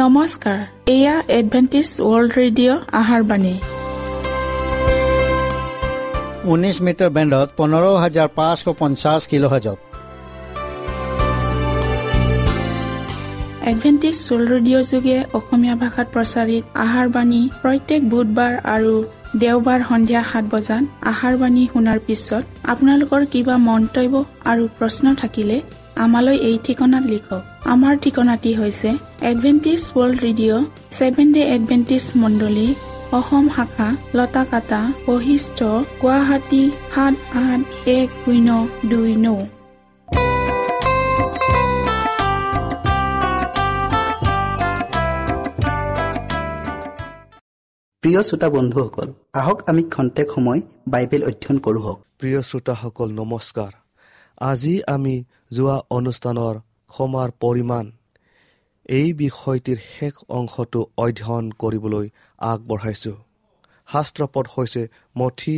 নমস্কাৰ, এয়া Adventist world radio' আহাৰ বাণী। 19 মিটাৰ বেণ্ডত 15550 কিলোহাৰ্জত। এডভেণ্টিষ্ট ৱৰ্ল্ড ৰেডিঅ' যোগে অসমীয়া ভাষাত প্ৰচাৰিত আহাৰ বাণী প্ৰত্যেক বুধবাৰ আৰু দেওবাৰ সন্ধিয়া 7 বজাত আহাৰ বাণী শুনাৰ পিছত আপোনালোকৰ কিবা মন্তব্য আৰু প্ৰশ্ন থাকিলে আমালৈ এই ঠিকনাত লিখক। আমাৰ ঠিকনাটি হৈছে Adventist world radio, seven day Adventist মণ্ডলী, অসম শাখা, লতাকাটা, বশিষ্ঠ, গুৱাহাটী 781029। প্ৰিয় শ্ৰোতা বন্ধুসকল, আহক আমি খন্তেক সময় বাইবেল অধ্যয়ন কৰোঁ। প্ৰিয় শ্ৰোতাসকল নমস্কাৰ। আজি আমি যোৱা অনুষ্ঠানৰ ক্ষমাৰ পৰিমাণ এই বিষয়টিৰ শেষ অংশটো অধ্যয়ন কৰিবলৈ আগবঢ়াইছোঁ। শাস্ত্ৰপদ হৈছে মথি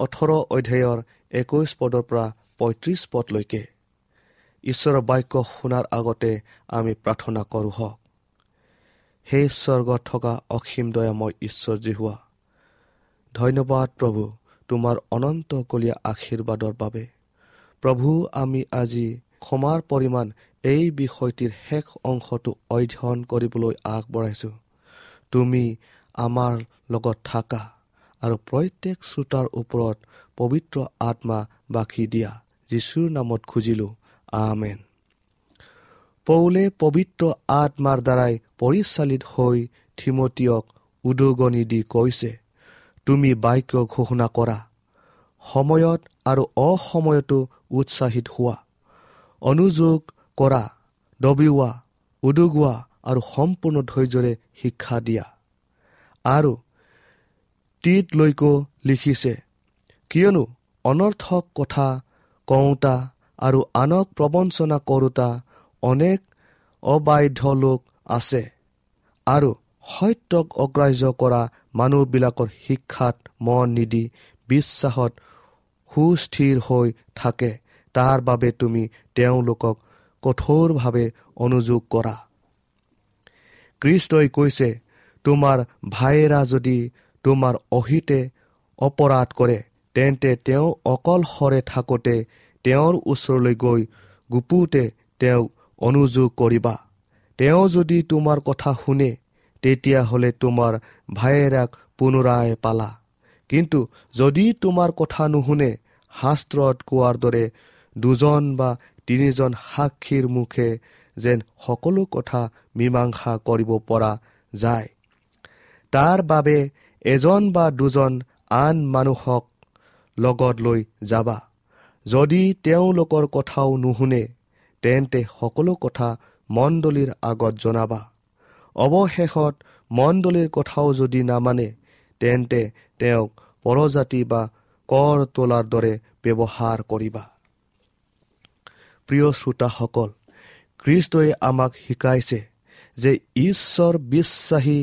18 অধ্যায়ৰ 21 পদৰ পৰা 35 পদলৈকে। ঈশ্বৰৰ বাক্য শুনাৰ আগতে আমি প্ৰাৰ্থনা কৰোঁ হওক। সেই স্বৰ্গত থকা অসীম দয়াময় ঈশ্বৰ যিহোৱা, ধন্যবাদ প্ৰভু তোমাৰ অনন্তকলীয়া আশীৰ্বাদৰ বাবে। প্ৰভু, আমি আজি ক্ষমাৰ পৰিমাণ এই বিষয়টিৰ শেষ অংশটো অধ্যয়ন কৰিবলৈ আগবঢ়াইছোঁ। তুমি আমাৰ লগত থাকা আৰু প্ৰত্যেক শ্ৰোতাৰ ওপৰত পবিত্ৰ আত্মা বাকি দিয়া। যীশুৰ নামত খুজিলোঁ, আমেন। পৌলে পবিত্ৰ আত্মাৰ দ্বাৰাই পৰিচালিত হৈ থিমতীয়ক উদগনি দি কৈছে, তুমি বাক্য ঘোষণা কৰা, সময়ত আৰু অসময়তো উৎসাহিত হোৱা, অনুযোগ কৰা, দবিওৱা, উদগোৱা আৰু সম্পূৰ্ণ ধৈৰ্যৰে শিক্ষা দিয়া। আৰু তীতলৈকো লিখিছে, কিয়নো অনৰ্থক কথা কওঁতা আৰু আনক প্ৰবঞ্চনা কৰোঁতা অনেক অবাধ্য লোক আছে আৰু সত্যক অগ্ৰাহ্য কৰা মানুহবিলাকৰ শিক্ষাত মন নিদি বিশ্বাসত সুস্থিৰ হৈ থাকে। তাৰ বাবে তুমি তেওঁলোকক কঠোৰভাৱে অনুযোগ কৰা। খ্ৰীষ্টই কৈছে, তোমাৰ ভায়েৰা যদি তোমাৰ অহিতে অপৰাধ কৰে, তেন্তে তেওঁ অকলশৰে থাকোঁতে তেওঁৰ ওচৰলৈ গৈ গুপুতে তেওঁক অনুযোগ কৰিবা। তেওঁ যদি তোমাৰ কথা শুনে, তেতিয়াহ'লে তোমাৰ ভায়েৰাক পুনৰাই পালা। কিন্তু যদি তোমাৰ কথা নুশুনে, শাস্ত্ৰত কোৱাৰ দৰে দুজন বা তিনিজন সাক্ষীৰ মুখে যেন সকলো কথা মীমাংসা কৰিব পৰা যায়, তাৰ বাবে এজন বা দুজন আন মানুহক লগত লৈ যাবা। যদি তেওঁলোকৰ কথাও নুশুনে, তেন্তে সকলো কথা মণ্ডলীৰ আগত জনাবা। অৱশেষত মণ্ডলীৰ কথাও যদি নামানে, তেন্তে তেওঁক পৰজাতি বা কৰ তোলাৰ দৰে ব্যৱহাৰ কৰিবা। প্ৰিয় শ্ৰোতাসকল, খ্ৰীষ্টই আমাক শিকাইছে যে ঈশ্বৰ বিশ্বাসী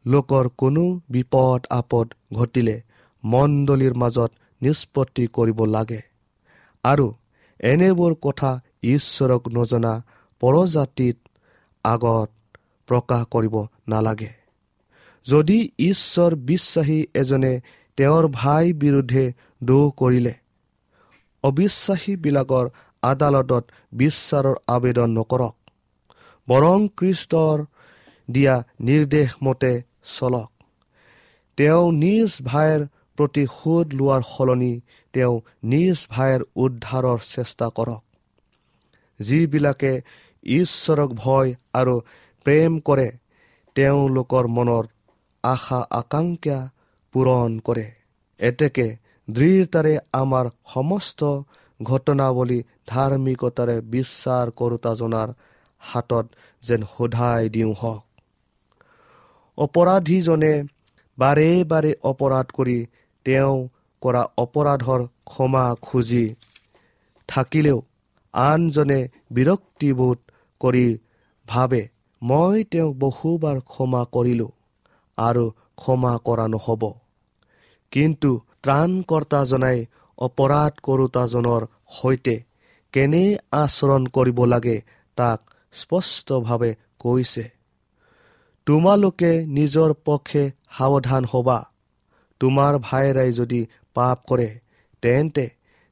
লোকৰ কোনো বিপদ আপদ ঘটিলে মণ্ডলীৰ মাজত নিষ্পত্তি কৰিব লাগে আৰু এনেবোৰ কথা ঈশ্বৰক নজনা পৰজাতিত আগত প্ৰকাশ কৰিব নালাগে। যদি ঈশ্বৰ বিশ্বাসী এজনে তেওঁৰ ভাই বিৰুদ্ধে দোষ কৰিলে, অবিশ্বাসীবিলাকৰ আদালতত বিচাৰৰ আবেদন নকৰক, বৰং খ্ৰীষ্টৰ দিয়া নিৰ্দেশ মতে চলক। তেওঁ নিজ ভাইৰ প্ৰতিশোধ লোৱাৰ সলনি তেওঁ নিজ ভাইৰ উদ্ধাৰৰ চেষ্টা কৰক। যিবিলাকে ঈশ্বৰক ভয় আৰু প্ৰেম কৰে, তেওঁলোকৰ মনৰ আশা আকাংক্ষা পূৰণ কৰে। এতেকে দৃঢ়তাৰে আমাৰ সমস্ত ঘটনাৱলী ধাৰ্মিকতাৰে বিচাৰ কৰোঁতাজনাৰ হাতত যেন সোধাই দিওঁ হওক। অপৰাধীজনে বাৰে বাৰে অপৰাধ কৰি তেওঁ কৰা অপৰাধৰ ক্ষমা খুজি থাকিলেও আনজনে বিৰক্তিবোধ কৰি ভাবে, মই তেওঁক বহুবাৰ ক্ষমা কৰিলোঁ আৰু ক্ষমা কৰা নহ'ব। কিন্তু ত্ৰাণকৰ্তাজনাই অপৰাধ কৰোঁতাজনৰ সৈতে কেনে আচৰণ কৰিব লাগে তাক স্পষ্টভাৱে কৈছে। তোমালোকে নিজৰ পক্ষে সাৱধান হ'বা। তোমাৰ ভাইৰাই যদি পাপ কৰে, তেন্তে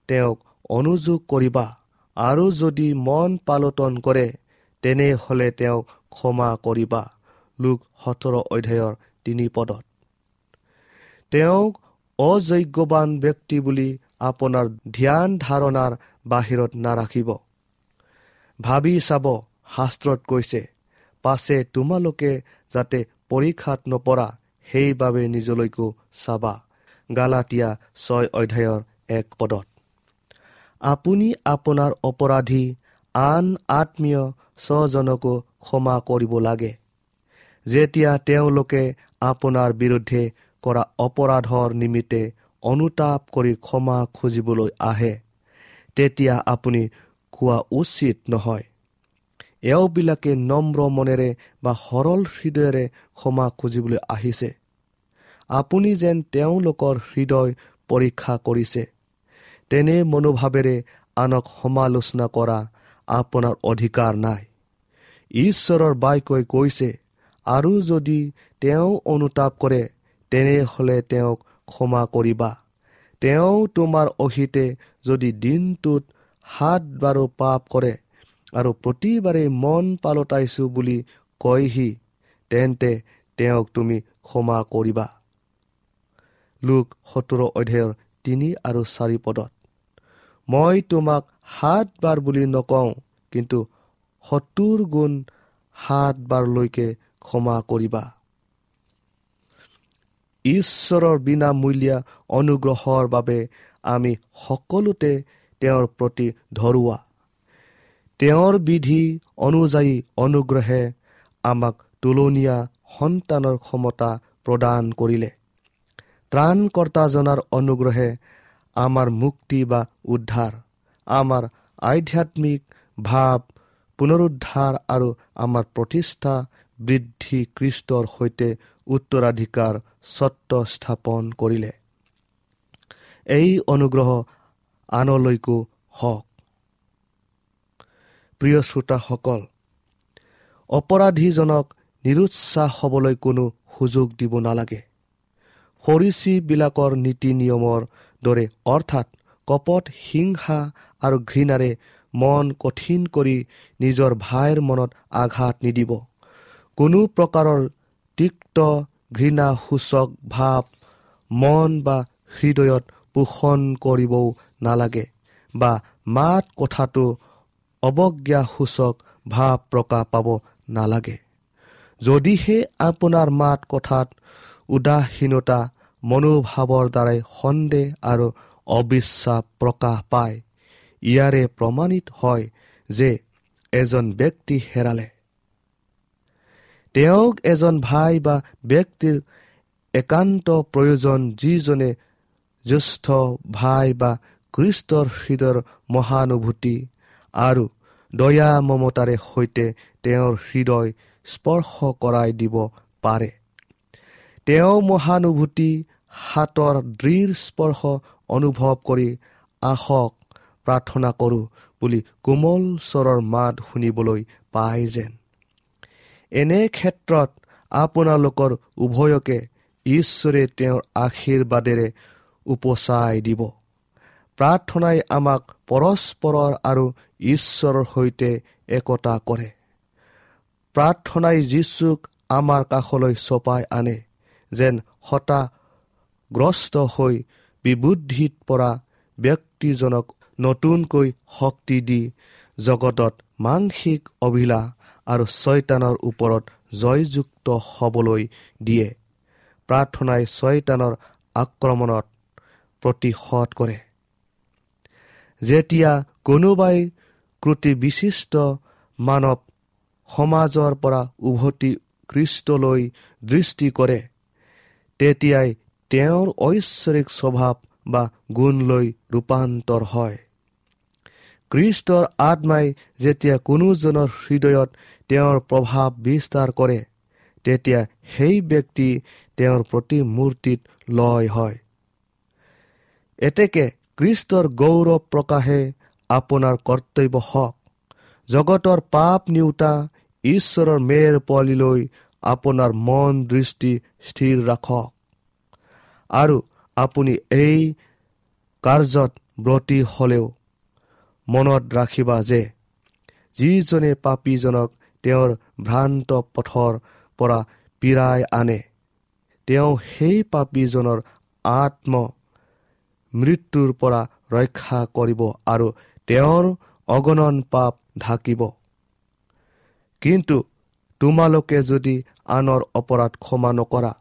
তেওঁক অনুযোগ কৰিবা, আৰু যদি মন পালটন কৰে, তেনেহ'লে তেওঁক ক্ষমা কৰিবা। লোক 17 অধ্যায়ৰ 3 পদত। তেওঁক অযোগ্যৱান ব্যক্তি বুলি আপোনাৰ ধ্যান ধাৰণাৰ বাহিৰত নাৰাখিব। ভাবি চাব, শাস্ত্ৰত কৈছে, পাছে তোমালোকে যাতে পৰীক্ষাত নপৰা, সেইবাবে নিজলৈকো চাবা। গালাটীয়া 6 অধ্যায়ৰ 1 পদত। আপুনি আপোনাৰ অপৰাধী আন আত্মীয় স্বজনকো ক্ষমা কৰিব লাগে, যেতিয়া তেওঁলোকে আপোনাৰ বিৰুদ্ধে কৰা অপৰাধৰ নিমিত্তে অনুতাপ কৰি ক্ষমা খুজিবলৈ আহে, তেতিয়া আপুনি কোৱা উচিত নহয়, এওঁবিলাকে নম্ৰ মনেৰে বা সৰল হৃদয়েৰে ক্ষমা খুজিবলৈ আহিছে। আপুনি যেন তেওঁলোকৰ হৃদয় পৰীক্ষা কৰিছে, তেনে মনোভাৱেৰে আনক সমালোচনা কৰা আপোনাৰ অধিকাৰ নাই। ঈশ্বৰৰ বাক্যই কৈছে, আৰু যদি তেওঁ অনুতাপ কৰে, তেনেহ'লে তেওঁক ক্ষমা কৰিবা। তেওঁ তোমাৰ অহিতে যদি দিনটোত 7 বাৰো পাপ কৰে আৰু প্ৰতিবাৰে মন পালটাইছোঁ বুলি কয়হি, তেন্তে তেওঁক তুমি ক্ষমা কৰিবা। লোক 17 অধ্যায়ৰ 3 আৰু 4 পদত। মই তোমাক 7 বাৰ বুলি নকওঁ, কিন্তু 70 গুণ 7 বাৰলৈকে ক্ষমা কৰিবা। ঈশ্বৰৰ বিনামূলীয়া অনুগ্ৰহৰ বাবে আমি সকলোতে তেওঁৰ প্ৰতি ধৰুৱা। তেওঁৰ বিধি অনুযায়ী অনুগ্ৰহে আমাক তুলনীয়া সন্তানৰ ক্ষমতা প্ৰদান কৰিলে। ত্ৰাণকৰ্তাজনাৰ অনুগ্ৰহে আমাৰ মুক্তি বা উদ্ধাৰ, আমাৰ আধ্যাত্মিক ভাৱ পুনৰুদ্ধাৰ আৰু আমাৰ প্ৰতিষ্ঠা বৃদ্ধি খ্ৰীষ্টৰ সৈতে উত্তৰাধিকাৰ স্বত্ব স্থাপন কৰিলে। এই অনুগ্ৰহ আনলৈকো হওক। প্ৰিয় শ্ৰোতাসকল, অপৰাধীজনক নিৰুৎসাহ হ'বলৈ কোনো সুযোগ দিব নালাগে। ফৰীচীবিলাকৰ নীতি নিয়মৰ দৰে, অৰ্থাৎ কপট, হিংসা আৰু ঘৃণাৰে মন কঠিন কৰি নিজৰ ভাইৰ মনত আঘাত নিদিব। কোনো প্ৰকাৰৰ তিক্ত ঘৃণাসূচক ভাৱ মন বা হৃদয়ত পোষণ কৰিবও নালাগে বা মাত কথাটো অৱজ্ঞাসূচক ভাৱ প্ৰকাশ পাব নালাগে। যদিহে আপোনাৰ মাত কথাত উদাসীনতা মনোভাৱৰ দ্বাৰাই সন্দেহ আৰু অবিশ্বাস প্ৰকাশ পায়, ইয়াৰে প্ৰমাণিত হয় যে এজন ব্যক্তি হেৰালে। তেওঁক এজন ভাই বা ব্যক্তিৰ একান্ত প্ৰয়োজন, যিজনে জ্যেষ্ঠ ভাই বা খ্ৰীষ্টৰ হৃদয়ৰ মহানুভূতি আৰু দয়া মমতাৰে সৈতে তেওঁৰ হৃদয় স্পৰ্শ কৰাই দিব পাৰে। তেওঁ মহানুভূতি হাতৰ দৃঢ় স্পৰ্শ অনুভৱ কৰি আহক প্ৰাৰ্থনা কৰোঁ বুলি কোমল স্বৰৰ মাত শুনিবলৈ পায় যেন। এনে ক্ষেত্ৰত আপোনালোকৰ উভয়কে ঈশ্বৰে তেওঁৰ আশীৰ্বাদেৰে উপচাই দিব। প্ৰাৰ্থনাই আমাক পৰস্পৰৰ আৰু ঈশ্বৰৰ সৈতে একতা কৰে। প্ৰাৰ্থনাই যীশুক আমাৰ কাষলৈ চপাই আনে, যেন হতাশগ্ৰস্ত হৈ বিবুদ্ধিত পৰা ব্যক্তিজনক নতুনকৈ শক্তি দি জগতত মাংসিক অভিলাষ আৰু ছয়তানৰ ওপৰত জয়যুক্ত হ'বলৈ দিয়ে। প্ৰাৰ্থনাই ছয়তানৰ আক্ৰমণত প্ৰতিহত কৰে। যেতিয়া কোনোবাই ক্ৰুটিবিশিষ্ট মানৱ সমাজৰ পৰা উভতি খ্ৰীষ্টলৈ দৃষ্টি কৰে, তেতিয়াই তেওঁৰ ঐশ্বৰিক স্বভাৱ বা গুণলৈ ৰূপান্তৰ হয়। খ্ৰীষ্টৰ আত্মাই যেতিয়া কোনোজনৰ হৃদয়ত তেওঁৰ প্ৰভাৱ বিস্তাৰ কৰে, তেতিয়া সেই ব্যক্তি তেওঁৰ প্ৰতিমূৰ্তিত লয় হয়। এতেকে খ্ৰীষ্টৰ গৌৰৱ প্ৰকাশে আপোনাৰ কৰ্তব্য হওক। জগতৰ পাপ নিওতা ঈশ্বৰৰ মেৰ পোৱালিলৈ আপোনাৰ মন দৃষ্টি স্থিৰ ৰাখক আৰু আপুনি এই কাৰ্যত ব্ৰতী হ'লেও মনত ৰাখিবা যে যিজনে পাপীজনক তেওঁৰ ভ্ৰান্ত পথৰ পৰা পীড়াই আনে, তেওঁ সেই পাপীজনৰ আত্ম মৃত্যুৰ পৰা ৰক্ষা কৰিব আৰু তেওঁৰ অগণন পাপ ঢাকিব। কিন্তু তোমালোকে যদি আনৰ অপৰাধ ক্ষমা নকৰা,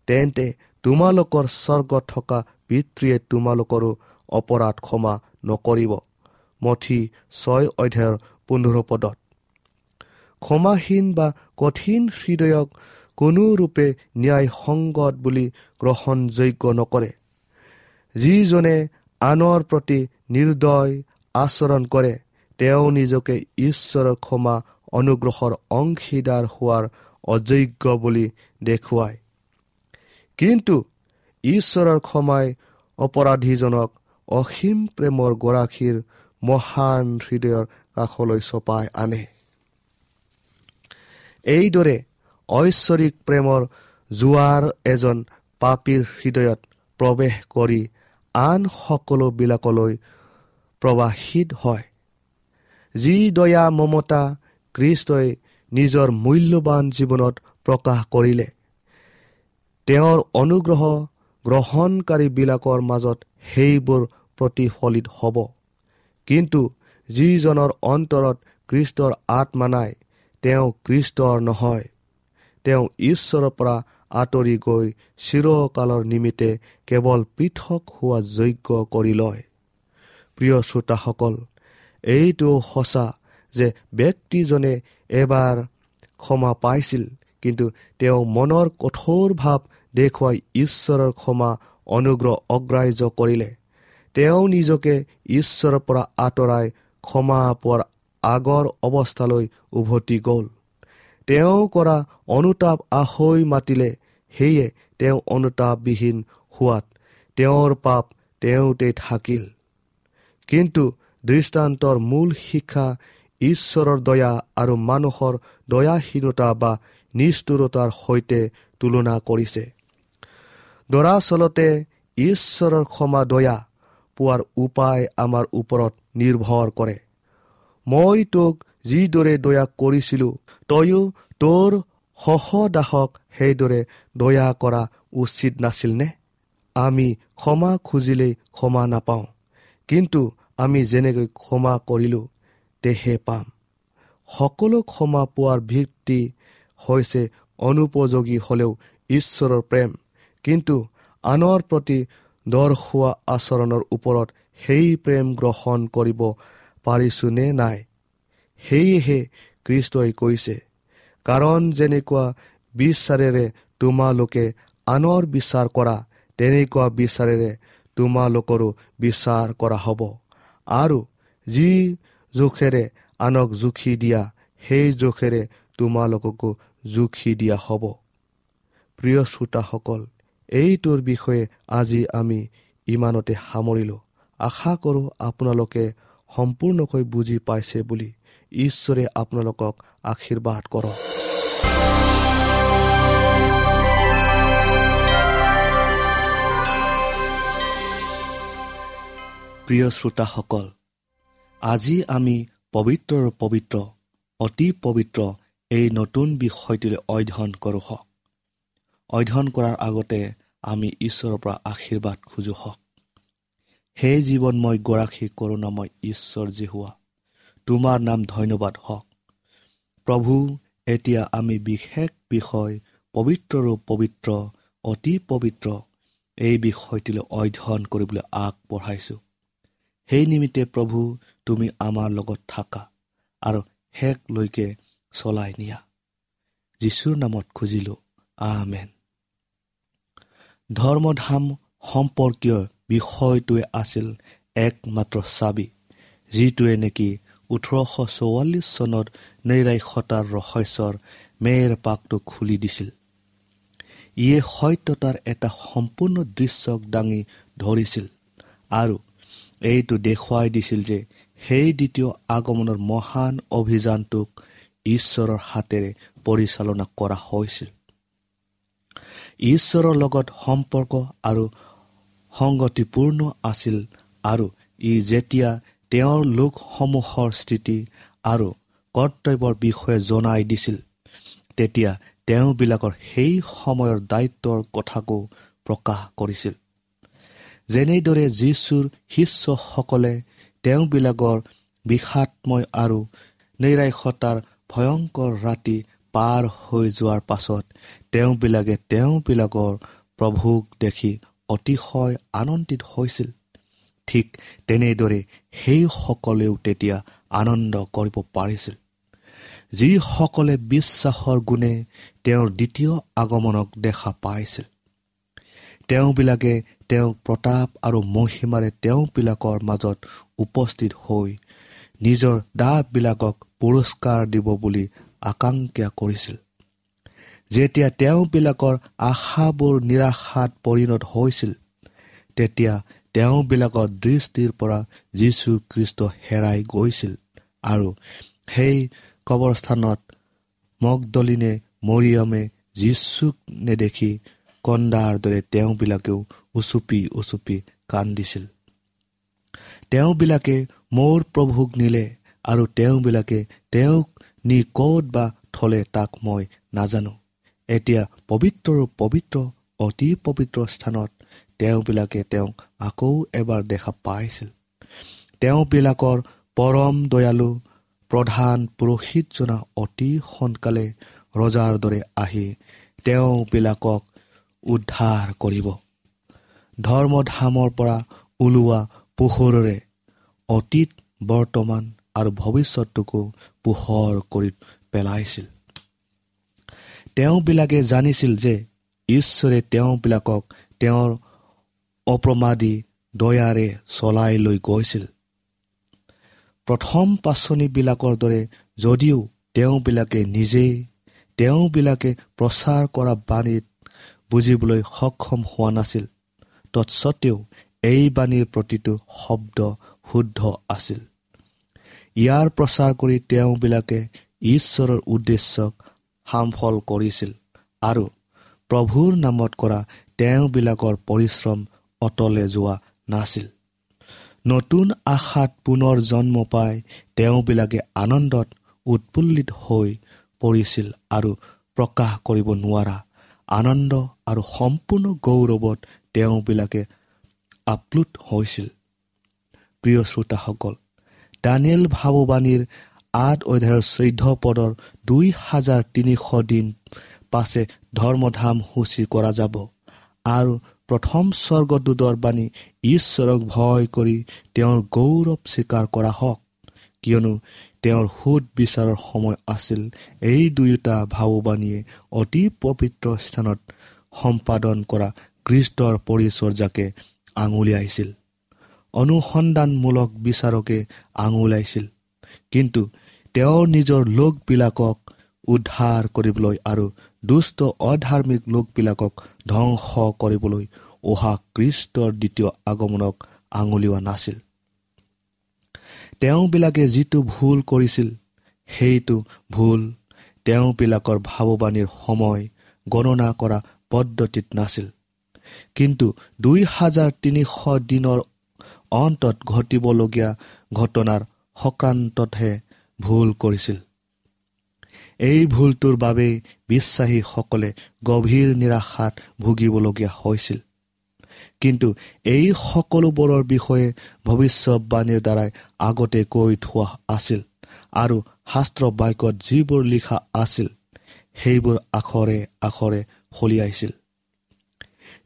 তেন্তে তোমালোকৰ স্বৰ্গত থকা পিতৃয়ে তোমালোকৰো অপৰাধ ক্ষমা নকৰিব। মথি 6:15 পদত। ক্ষমাহীন বা কঠিন হৃদয়ক কোনোৰূপে ন্যায়সংগত বুলি গ্ৰহণযোগ্য নকৰে। যিজনে আনৰ প্ৰতি নিৰ্দয় আচৰণ কৰে, তেওঁ নিজকে ঈশ্বৰৰ ক্ষমা অনুগ্ৰহৰ অংশীদাৰ হোৱাৰ অযোগ্য বুলি দেখুৱায়। কিন্তু ঈশ্বৰৰ ক্ষমাই অপৰাধীজনক অসীম প্ৰেমৰ গৰাকীৰ মহান হৃদয়ৰ কাষলৈ চপাই আনে। এইদৰে ঐশ্বৰিক প্ৰেমৰ জোৱাৰ এজন পাপীৰ হৃদয়ত প্ৰৱেশ কৰি আন সকলোবিলাকলৈ প্ৰবাহিত হয়। যি দয়া মমতা খ্ৰীষ্টই নিজৰ মূল্যৱান জীৱনত প্ৰকাশ কৰিলে, তেওঁৰ অনুগ্ৰহ গ্ৰহণকাৰীবিলাকৰ মাজত সেইবোৰ প্ৰতিফলিত হ'ব। কিন্তু যিজনৰ অন্তৰত খ্ৰীষ্টৰ আত্মা নাই, তেওঁ খ্ৰীষ্টৰ নহয়। তেওঁ ঈশ্বৰৰ পৰা আঁতৰি গৈ চিৰকালৰ নিমিত্তে কেৱল পৃথক হোৱা যোগ্য কৰি লয়। প্ৰিয় শ্ৰোতাসকল, এইটো সঁচা যে ব্যক্তিজনে এবাৰ ক্ষমা পাইছিল, কিন্তু তেওঁ মনৰ কঠোৰ ভাৱ দেখুৱাই ঈশ্বৰৰ ক্ষমা অনুগ্ৰহ অগ্ৰাহ্য কৰিলে। তেওঁ নিজকে ঈশ্বৰৰ পৰা আঁতৰাই ক্ষমা পোৱাৰ আগৰ অৱস্থালৈ উভতি গ'ল। তেওঁ কৰা অনুতাপ আহৈ মাতিলে, সেয়ে তেওঁ অনুতাপবিহীন হোৱাত তেওঁৰ পাপ তেওঁতে থাকিল। কিন্তু দৃষ্টান্তৰ মূল শিক্ষা ঈশ্বৰৰ দয়া আৰু মানুহৰ দয়াহীনতা বা নিষ্ঠুৰতাৰ সৈতে তুলনা কৰিছে। দৰাচলতে ঈশ্বৰৰ ক্ষমা দয়া পোৱাৰ উপায় আমাৰ ওপৰত নিৰ্ভৰ কৰে। মই তোক যিদৰে দয়া কৰিছিলোঁ, তয়ো তোৰ সহদাসক সেইদৰে দয়া কৰা উচিত নাছিলনে? আমি ক্ষমা খুজিলেই ক্ষমা নাপাওঁ, কিন্তু আমি যেনেকৈ ক্ষমা কৰিলোঁ তেহে পাম। সকলো ক্ষমা পোৱাৰ ভিত্তি হৈছে অনুপযোগী হ'লেও ঈশ্বৰৰ প্ৰেম, কিন্তু আনৰ প্ৰতি দৰ্শোৱা আচৰণৰ ওপৰত সেই প্ৰেম গ্ৰহণ কৰিব পাৰিছোঁনে নাই, সেয়েহে খ্ৰীষ্টই কৈছে, কাৰণ যেনেকুৱা বিচাৰেৰে তোমালোকে আনৰ বিচাৰ কৰা, তেনেকুৱা বিচাৰেৰে তোমালোকৰো বিচাৰ কৰা হ'ব, আৰু যি জোখেৰে আনক জুখি দিয়া, সেই জোখেৰে তোমালোককো জুখি দিয়া হ'ব। প্ৰিয় শ্ৰোতাসকল, এইটোৰ বিষয়ে আজি আমি ইমানতে সামৰিলোঁ। আশা কৰোঁ আপোনালোকে সম্পূৰ্ণকৈ বুজি পাইছে বুলি। ঈশ্বৰে আপোনালোকক আশীৰ্বাদ কৰক। প্ৰিয় শ্ৰোতাসকল, আজি আমি পবিত্ৰৰ পবিত্ৰ অতি পবিত্ৰ এই নতুন বিষয়টিলৈ অধ্যয়ন কৰোঁ হওক। অধ্যয়ন কৰাৰ আগতে আমি ঈশ্বৰৰ পৰা আশীৰ্বাদ খোজো হওক। হে জীৱনময় গৰাকী কৰোণাময় ঈশ্বৰ যিহোৱা, তোমাৰ নাম ধন্যবাদ হওক। প্ৰভু, এতিয়া আমি বিশেষ বিষয় পবিত্ৰৰো পবিত্ৰ অতি পবিত্ৰ এই বিষয়টিলৈ অধ্যয়ন কৰিবলৈ আগবঢ়াইছোঁ। সেই নিমিত্তে প্ৰভু, তুমি আমাৰ লগত থাকা আৰু শেষলৈকে চলাই নিয়া। যীশুৰ নামত খুজিলোঁ, আমেন। ধৰ্মধাম সম্পৰ্কীয় বিষয়টোৱে আছিল একমাত্ৰ চাবি, যিটোৱে নেকি 1844 চনত নৈৰাশ্যতাৰ ৰহস্যৰ মেৰ পাকটো খুলি দিছিল। ইয়ে সত্যতাৰ এটা সম্পূৰ্ণ দৃশ্যক দাঙি ধৰিছিল আৰু এইটো দেখুৱাই দিছিল যে সেই দ্বিতীয় আগমনৰ মহান অভিযানটোক ঈশ্বৰৰ হাতেৰে পৰিচালনা কৰা হৈছিল। ঈশ্বৰৰ লগত সম্পৰ্ক আৰু সংগতিপূৰ্ণ আছিল আৰু ই যেতিয়া তেওঁৰ লোকসমূহৰ স্থিতি আৰু কৰ্তব্যৰ বিষয়ে জনাই দিছিল, তেতিয়া তেওঁবিলাকৰ সেই সময়ৰ দায়িত্বৰ কথাকো প্ৰকাশ কৰিছিল। যেনেদৰে যীশুৰ শিষ্যসকলে তেওঁবিলাকৰ বিষাদময় আৰু নৈৰাশ্যতাৰ ভয়ংকৰ ৰাতি পাৰ হৈ যোৱাৰ পাছত তেওঁবিলাকে তেওঁবিলাকৰ প্ৰভুক দেখি অতিশয় আনন্দিত হৈছিল, ঠিক তেনেদৰে সেইসকলেও তেতিয়া আনন্দ কৰিব পাৰিছিল, যিসকলে বিশ্বাসৰ গুণে তেওঁৰ দ্বিতীয় আগমনক দেখা পাইছিল। তেওঁবিলাকে তেওঁক প্ৰতাপ আৰু মহিমাৰে তেওঁবিলাকৰ মাজত উপস্থিত হৈ নিজৰ দাসবিলাকক পুৰস্কাৰ দিব বুলি আকাংক্ষা কৰিছিল। যেতিয়া তেওঁবিলাকৰ আশাবোৰ নিৰাশাত পৰিণত হৈছিল, তেতিয়া তেওঁবিলাকৰ দৃষ্টিৰ পৰা যীশুখ্ৰীষ্ট হেৰাই গৈছিল আৰু সেই কবৰস্থানত মগদলিনে মৰিয়মে যীশুক নেদেখি কন্দাৰ দৰে তেওঁবিলাকেও উচুপি উচুপি কান্দিছিল। তেওঁবিলাকে মোৰ প্ৰভুক নিলে আৰু তেওঁবিলাকে তেওঁক নি ক'ত বা থলে তাক মই নাজানো। এতিয়া পবিত্ৰ পবিত্ৰ অতি পবিত্ৰ স্থানত তেওঁবিলাকে তেওঁক আকৌ এবাৰ দেখা পাইছিল। তেওঁবিলাকৰ পৰম দয়ালু প্ৰধান পুৰোহিতজনা অতি সোনকালে ৰজাৰ দৰে আহি তেওঁবিলাকক উদ্ধাৰ কৰিব। ধৰ্মধামৰ পৰা ওলোৱা পোহৰেৰে অতীত, বৰ্তমান আৰু ভৱিষ্যতটোকো পোহৰ কৰি পেলাইছিল। তেওঁবিলাকে জানিছিল যে ঈশ্বৰে তেওঁবিলাকক তেওঁৰ অপ্ৰমাদী দয়াৰে চলাই লৈ গৈছিল। প্ৰথম পাচনিবিলাকৰ দৰে যদিও তেওঁবিলাকে নিজেই তেওঁবিলাকে প্ৰচাৰ কৰা বাণীত বুজিবলৈ সক্ষম হোৱা নাছিল, তৎসত্বেও এই বাণীৰ প্ৰতিটো শব্দ শুদ্ধ আছিল। ইয়াৰ প্ৰচাৰ কৰি তেওঁবিলাকে ঈশ্বৰৰ উদ্দেশ্যক সামফল কৰিছিল আৰু প্ৰভুৰ নামত কৰা তেওঁবিলাকৰ পৰিশ্ৰম অতলে যোৱা নাছিল। নতুন আশাত পুনৰ জন্ম পাই তেওঁবিলাকে আনন্দত উৎফুল্লিত হৈ পৰিছিল আৰু প্ৰকাশ কৰিব নোৱাৰা আনন্দ আৰু সম্পূৰ্ণ গৌৰৱত তেওঁবিলাকে আপ্লুত হৈছিল। প্ৰিয় শ্ৰোতাসকল, দানিয়েল ভাৱবাণীৰ 8 অধ্যায়ৰ 14 পদৰ 2300 দিন পাছে ধৰ্মধাম সূচী কৰা যাব আৰু প্ৰথম স্বৰ্গদূতৰ বাণী ঈশ্বৰক ভয় কৰি তেওঁৰ গৌৰৱ স্বীকাৰ কৰা হওক, কিয়নো তেওঁৰ সোধ বিচাৰৰ সময় আছিল। এই দুয়োটা ভাৱবাণীয়ে অতি পবিত্ৰ স্থানত সম্পাদন কৰা খ্ৰীষ্টৰ পৰিচৰ্যাকে আঙুলিয়াইছিল, অনুসন্ধানমূলক বিচাৰকে আঙুলিয়াইছিল। কিন্তু তেওঁৰ নিজৰ লোকবিলাকক উদ্ধাৰ কৰিবলৈ আৰু দুষ্ট অধাৰ্মিক লোকবিলাকক ধ্বংস কৰিবলৈ অহা খ্ৰীষ্টৰ দ্বিতীয় আগমনক আঙুলিওৱা নাছিল। তেওঁবিলাকে যিটো ভুল কৰিছিল সেইটো ভুল তেওঁবিলাকৰ ভাৱবাণীৰ সময় গণনা কৰা পদ্ধতিত নাছিল, কিন্তু 2300 দিনৰ অন্তত ঘটিবলগীয়া ঘটনাৰ সংক্ৰান্ততহে ভুল কৰিছিল। এই ভুলটোৰ বাবেই বিশ্বাসীসকলে গভীৰ নিৰাশাত ভুগিবলগীয়া হৈছিল। কিন্তু এই সকলোবোৰৰ বিষয়ে ভৱিষ্যতবাণীৰ দ্বাৰাই আগতে কৈ থোৱা আছিল আৰু শাস্ত্ৰ বাক্যত যিবোৰ লিখা আছিল সেইবোৰ আখৰে আখৰে ফলিয়াইছিল।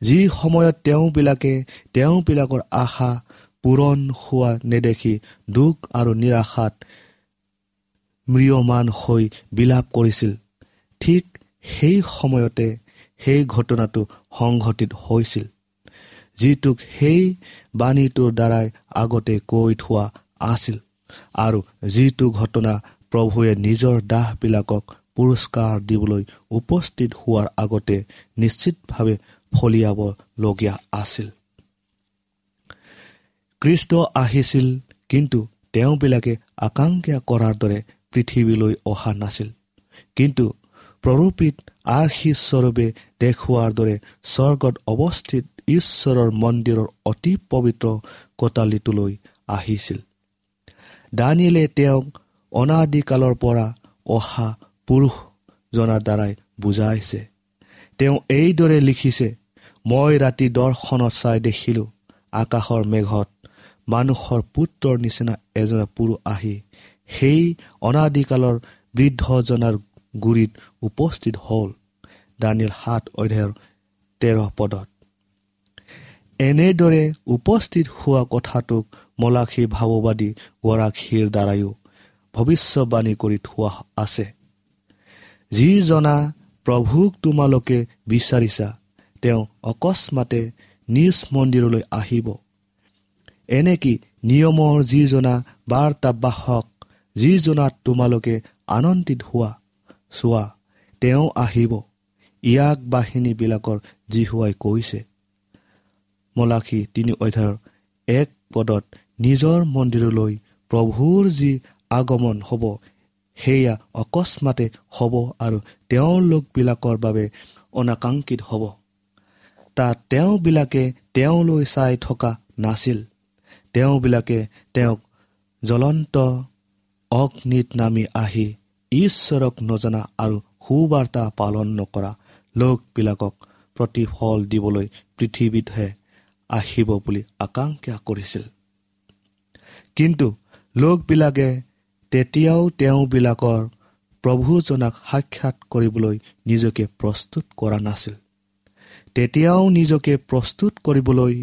যি সময়ত তেওঁবিলাকে তেওঁবিলাকৰ আশা পূৰণ হোৱা নেদেখি দুখ আৰু নিৰাশাত ম্ৰিয়মান হৈ বিলাপ কৰিছিল, ঠিক সেই সময়তে সেই ঘটনাটো সংঘটিত হৈছিল যিটোক সেই বাণীটোৰ দ্বাৰাই আগতে কৈ থোৱা আছিল আৰু যিটো ঘটনা প্ৰভুৱে নিজৰ দাসবিলাকক পুৰস্কাৰ দিবলৈ উপস্থিত হোৱাৰ আগতে নিশ্চিতভাৱে ফলিয়াবলগীয়া আছিল। খ্ৰীষ্ট আহিছিল, কিন্তু তেওঁবিলাকে আকাংক্ষা কৰাৰ দৰে পৃথিৱীলৈ অহা নাছিল, কিন্তু প্ৰৰূপিত আৰ্হি স্বৰূপে দেখুওৱাৰ দৰে স্বৰ্গত অৱস্থিত ঈশ্বৰৰ মন্দিৰৰ অতি পবিত্ৰ কোটালীটোলৈ আহিছিল। দানিয়েলে তেওঁক অনাদিকালৰ পৰা অহা পুৰুষ জনাৰ দ্বাৰাই বুজাইছে। তেওঁ এইদৰে লিখিছে, মই ৰাতি দৰ্শনত চাই দেখিলোঁ, আকাশৰ মেঘত মানুহৰ পুত্ৰৰ নিচিনা এজন পুৰুষ আহি সেই অনাদিকালৰ বৃদ্ধজনাৰ গুৰিত উপস্থিত হ'ল। দানিয়েল 7 অধ্যায়ৰ 13 পদত এনেদৰে উপস্থিত হোৱা কথাটোক মলাখী ভাৱবাদী গৰাকীৰ দ্বাৰায়ো ভৱিষ্যবাণী কৰি থোৱা আছে। যিজনা প্ৰভুক তোমালোকে বিচাৰিছা, তেওঁ অকস্মাতে নিজ মন্দিৰলৈ আহিব। এনেকি নিয়মৰ যিজনা বাৰ্তাবাহক, যিজনাত তোমালোকে আনন্দিত হোৱা, চোৱা তেওঁ আহিব, ইয়াক বাহিনীবিলাকৰ যিহোৱাই কৈছে। মলাখী 3 অধ্যায়ৰ 1 পদত নিজৰ মন্দিৰলৈ প্ৰভুৰ যি আগমন হ'ব, সেয়া অকস্মাতে হ'ব আৰু তেওঁলোকবিলাকৰ বাবে অনাকাংক্ষিত হ'ব। তাত তেওঁবিলাকে তেওঁলৈ চাই থকা নাছিল, তেওঁবিলাকে তেওঁক জ্বলন্ত অগ্নিত নামি আহি ঈশ্বৰক নজনা আৰু সুবাৰ্তা পালন নকৰা লোকবিলাকক প্ৰতিফল দিবলৈ পৃথিৱীতহে আহিব বুলি আকাংক্ষা কৰিছিল। কিন্তু লোকবিলাকে তেতিয়াও তেওঁবিলাকৰ প্ৰভুজনাক সাক্ষাৎ কৰিবলৈ নিজকে প্ৰস্তুত কৰা নাছিল। তেতিয়াও নিজকে প্ৰস্তুত কৰিবলৈ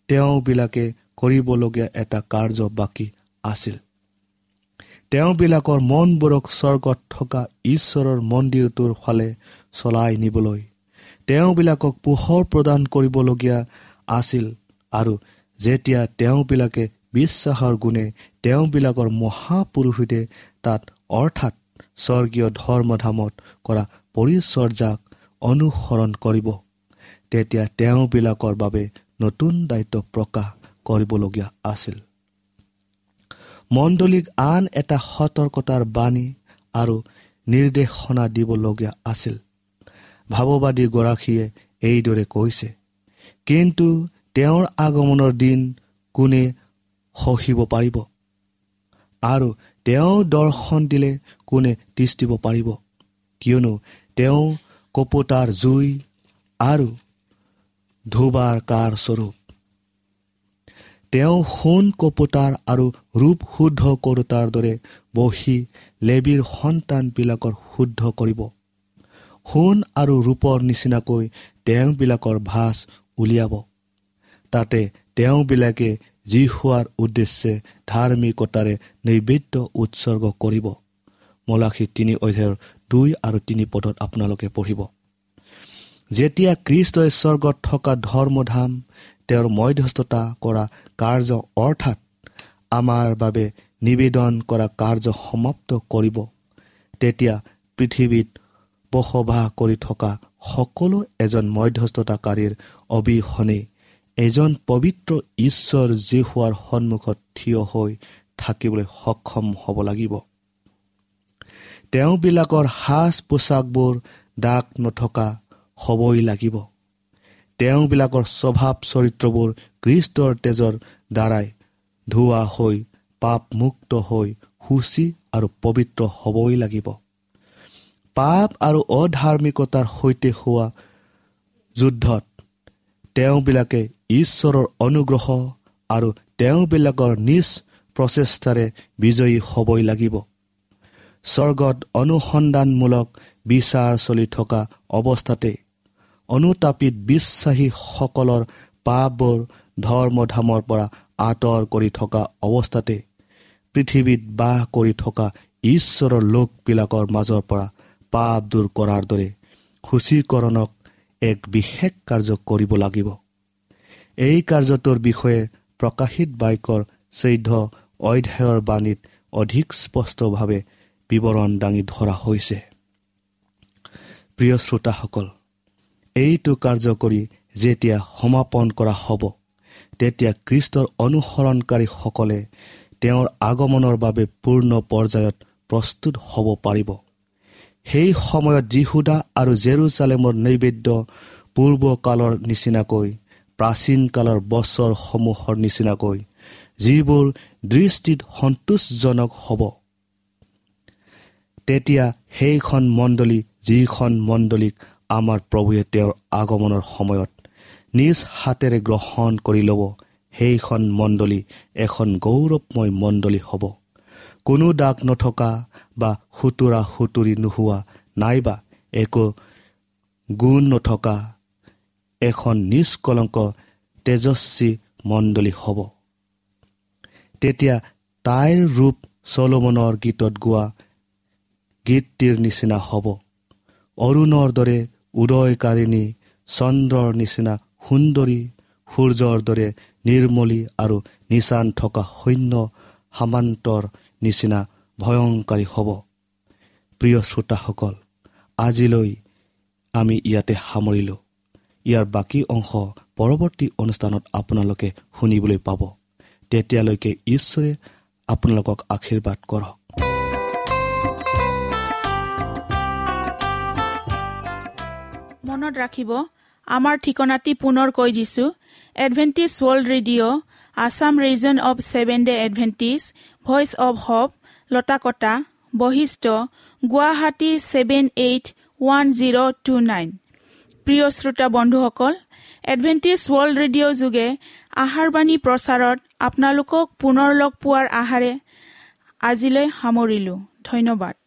তেওঁবিলাকে কৰিবলগীয়া এটা কাৰ্য বাকী আছিল। তেওঁবিলাকৰ মনবোৰক স্বৰ্গত থকা ঈশ্বৰৰ মন্দিৰটোৰ ফালে চলাই নিবলৈ তেওঁবিলাকক পোহৰ প্ৰদান কৰিবলগীয়া আছিল। আৰু যেতিয়া তেওঁবিলাকে বিশ্বাসৰ গুণে তেওঁবিলাকৰ মহাপুৰুষিতে তাত অৰ্থাৎ স্বৰ্গীয় ধৰ্মধামত কৰা পৰিচৰ্যাক অনুসৰণ কৰিব, তেতিয়া তেওঁবিলাকৰ বাবে নতুন দায়িত্ব প্ৰকাশ কৰিবলগীয়া আছিল। মণ্ডলীক আন এটা সতৰ্কতাৰ বাণী আৰু নিৰ্দেশনা দিবলগীয়া আছিল। ভাৱবাদীগৰাকীয়ে এইদৰে কৈছে, কিন্তু তেওঁৰ আগমনৰ দিন কোনে সহিব পাৰিব, আৰু তেওঁ দৰ্শন দিলে কোনে তিষ্ঠিব পাৰিব? কিয়নো তেওঁ কপোতাৰ জুই আৰু ধোবাৰ কাৰ স্বৰূপ। তেওঁ সোণ কপোতাৰ আৰু ৰূপ শুদ্ধ কৰোতাৰ দৰে বহি লেবীৰ সন্তানবিলাকৰ শুদ্ধ কৰিব। সোণ আৰু ৰূপৰ নিচিনাকৈ তেওঁবিলাকৰ ভাঁজ উলিয়াব। তাতে তেওঁবিলাকে যিহোৱাৰ উদ্দেশ্যে ধাৰ্মিকতাৰে নৈবেদ্য উৎসৰ্গ কৰিব। মলাখী 3 অধ্যায়ৰ 2 আৰু 3 পদত আপোনালোকে পঢ়িব। যেতিয়া খ্ৰীষ্টই স্বৰ্গত থকা ধৰ্মধাম তেওঁৰ মধ্যস্থতা কৰা কাৰ্য অৰ্থাৎ আমাৰ বাবে নিবেদন কৰা কাৰ্য সমাপ্ত কৰিব, তেতিয়া পৃথিৱীত বসবাস কৰি থকা সকলো এজন মধ্যস্থতাকাৰীৰ অবিহনে এজন পবিত্ৰ ঈশ্বৰ যিহোৱাৰ সন্মুখত থিয় হৈ থাকিবলৈ সক্ষম হ'ব লাগিব। তেওঁবিলাকৰ সাজ পোছাকবোৰ দাগ নথকা হ'বই লাগিব। তেওঁবিলাকৰ স্বভাৱ চৰিত্ৰবোৰ খ্ৰীষ্টৰ তেজৰ দ্বাৰাই ধোৱা হৈ পাপমুক্ত হৈ শুচি আৰু পবিত্ৰ হ'বই লাগিব। পাপ আৰু অধাৰ্মিকতাৰ সৈতে হোৱা যুদ্ধত তেওঁবিলাকে ঈশ্বৰৰ অনুগ্ৰহ আৰু তেওঁবিলাকৰ নিজ প্ৰচেষ্টাৰে বিজয়ী হ'বই লাগিব। স্বৰ্গত অনুসন্ধানমূলক বিচাৰ চলি থকা অৱস্থাতে অনুতাপিত বিশ্বাসীসকলৰ পাপবোৰ ধৰ্মধামৰ পৰা আঁতৰ কৰি থকা অৱস্থাতে পৃথিৱীত বাস কৰি থকা ঈশ্বৰৰ লোকবিলাকৰ মাজৰ পৰা পাপ দূৰ কৰাৰ দৰে সূচীকৰণক এক বিশেষ কাৰ্য কৰিব লাগিব। এই কাৰ্যটোৰ বিষয়ে প্ৰকাশিত বাক্যৰ 14 অধ্যায়ৰ বাণীত অধিক স্পষ্টভাৱে বিৱৰণ দাঙি ধৰা হৈছে। প্ৰিয় শ্ৰোতাসকল, এইটো কাৰ্য কৰি যেতিয়া সমাপন কৰা হ'ব, তেতিয়া খ্ৰীষ্টৰ অনুসৰণকাৰীসকলে তেওঁৰ আগমনৰ বাবে পূৰ্ণ পৰ্যায়ত প্ৰস্তুত হ'ব পাৰিব। সেই সময়ত যিহুদা আৰু জেৰুজালেমৰ নৈবেদ্য পূৰ্বকালৰ নিচিনাকৈ, প্ৰাচীন কালৰ বছৰসমূহৰ নিচিনাকৈ, যিবোৰ দৃষ্টিত সন্তোষজনক হ'ব। তেতিয়া সেইখন মণ্ডলী, যিখন মণ্ডলীক আমাৰ প্ৰভুৱে তেওঁৰ আগমনৰ সময়ত নিজ হাতেৰে গ্ৰহণ কৰি ল'ব, সেইখন মণ্ডলী এখন গৌৰৱময় মণ্ডলী হ'ব। কোনো দাগ নথকা বা সুতুৰা সুতুৰি নোহোৱা নাইবা একো গুণ নথকা এখন নিষ্কলংক তেজস্বী মণ্ডলী হ'ব। তেতিয়া তাইৰ ৰূপ চলোমনৰ গীতত গোৱা গীতটিৰ নিচিনা হ'ব, অৰুণৰ দৰে উদয়কাৰিণী, চন্দ্ৰৰ নিচিনা সুন্দৰী, সূৰ্যৰ দৰে নিৰ্মলী আৰু নিচান থকা সৈন্য সামান্তৰ নিচিনা ভয়ংকাৰী হ'ব। প্ৰিয় শ্ৰোতাসকল, আজিলৈ আমি ইয়াতে সামৰিলোঁ। ইয়াৰ বাকী অংশ পৰৱৰ্তী অনুষ্ঠানত আপোনালোকে শুনিবলৈ পাব। তেতিয়ালৈকে ঈশ্বৰে আপোনালোকক আশীৰ্বাদ কৰক। মনত ৰাখিব, আমাৰ ঠিকনাটি পুনৰ কৈ দিছোঁ। Adventist World Radio, Assam Region of Seven Day Adventist, Voice of Hope, Latakata, Basistha, Guwahati 781029। প্ৰিয় শ্ৰোতা বন্ধুসকল, এডভেণ্টিষ্ট ৱৰ্ল্ড ৰেডিঅ' যোগে আহাৰবাণী প্ৰচাৰত আপোনালোকক পুনৰ লগ পোৱাৰ আশাৰে আজিলৈ সামৰিলোঁ। ধন্যবাদ।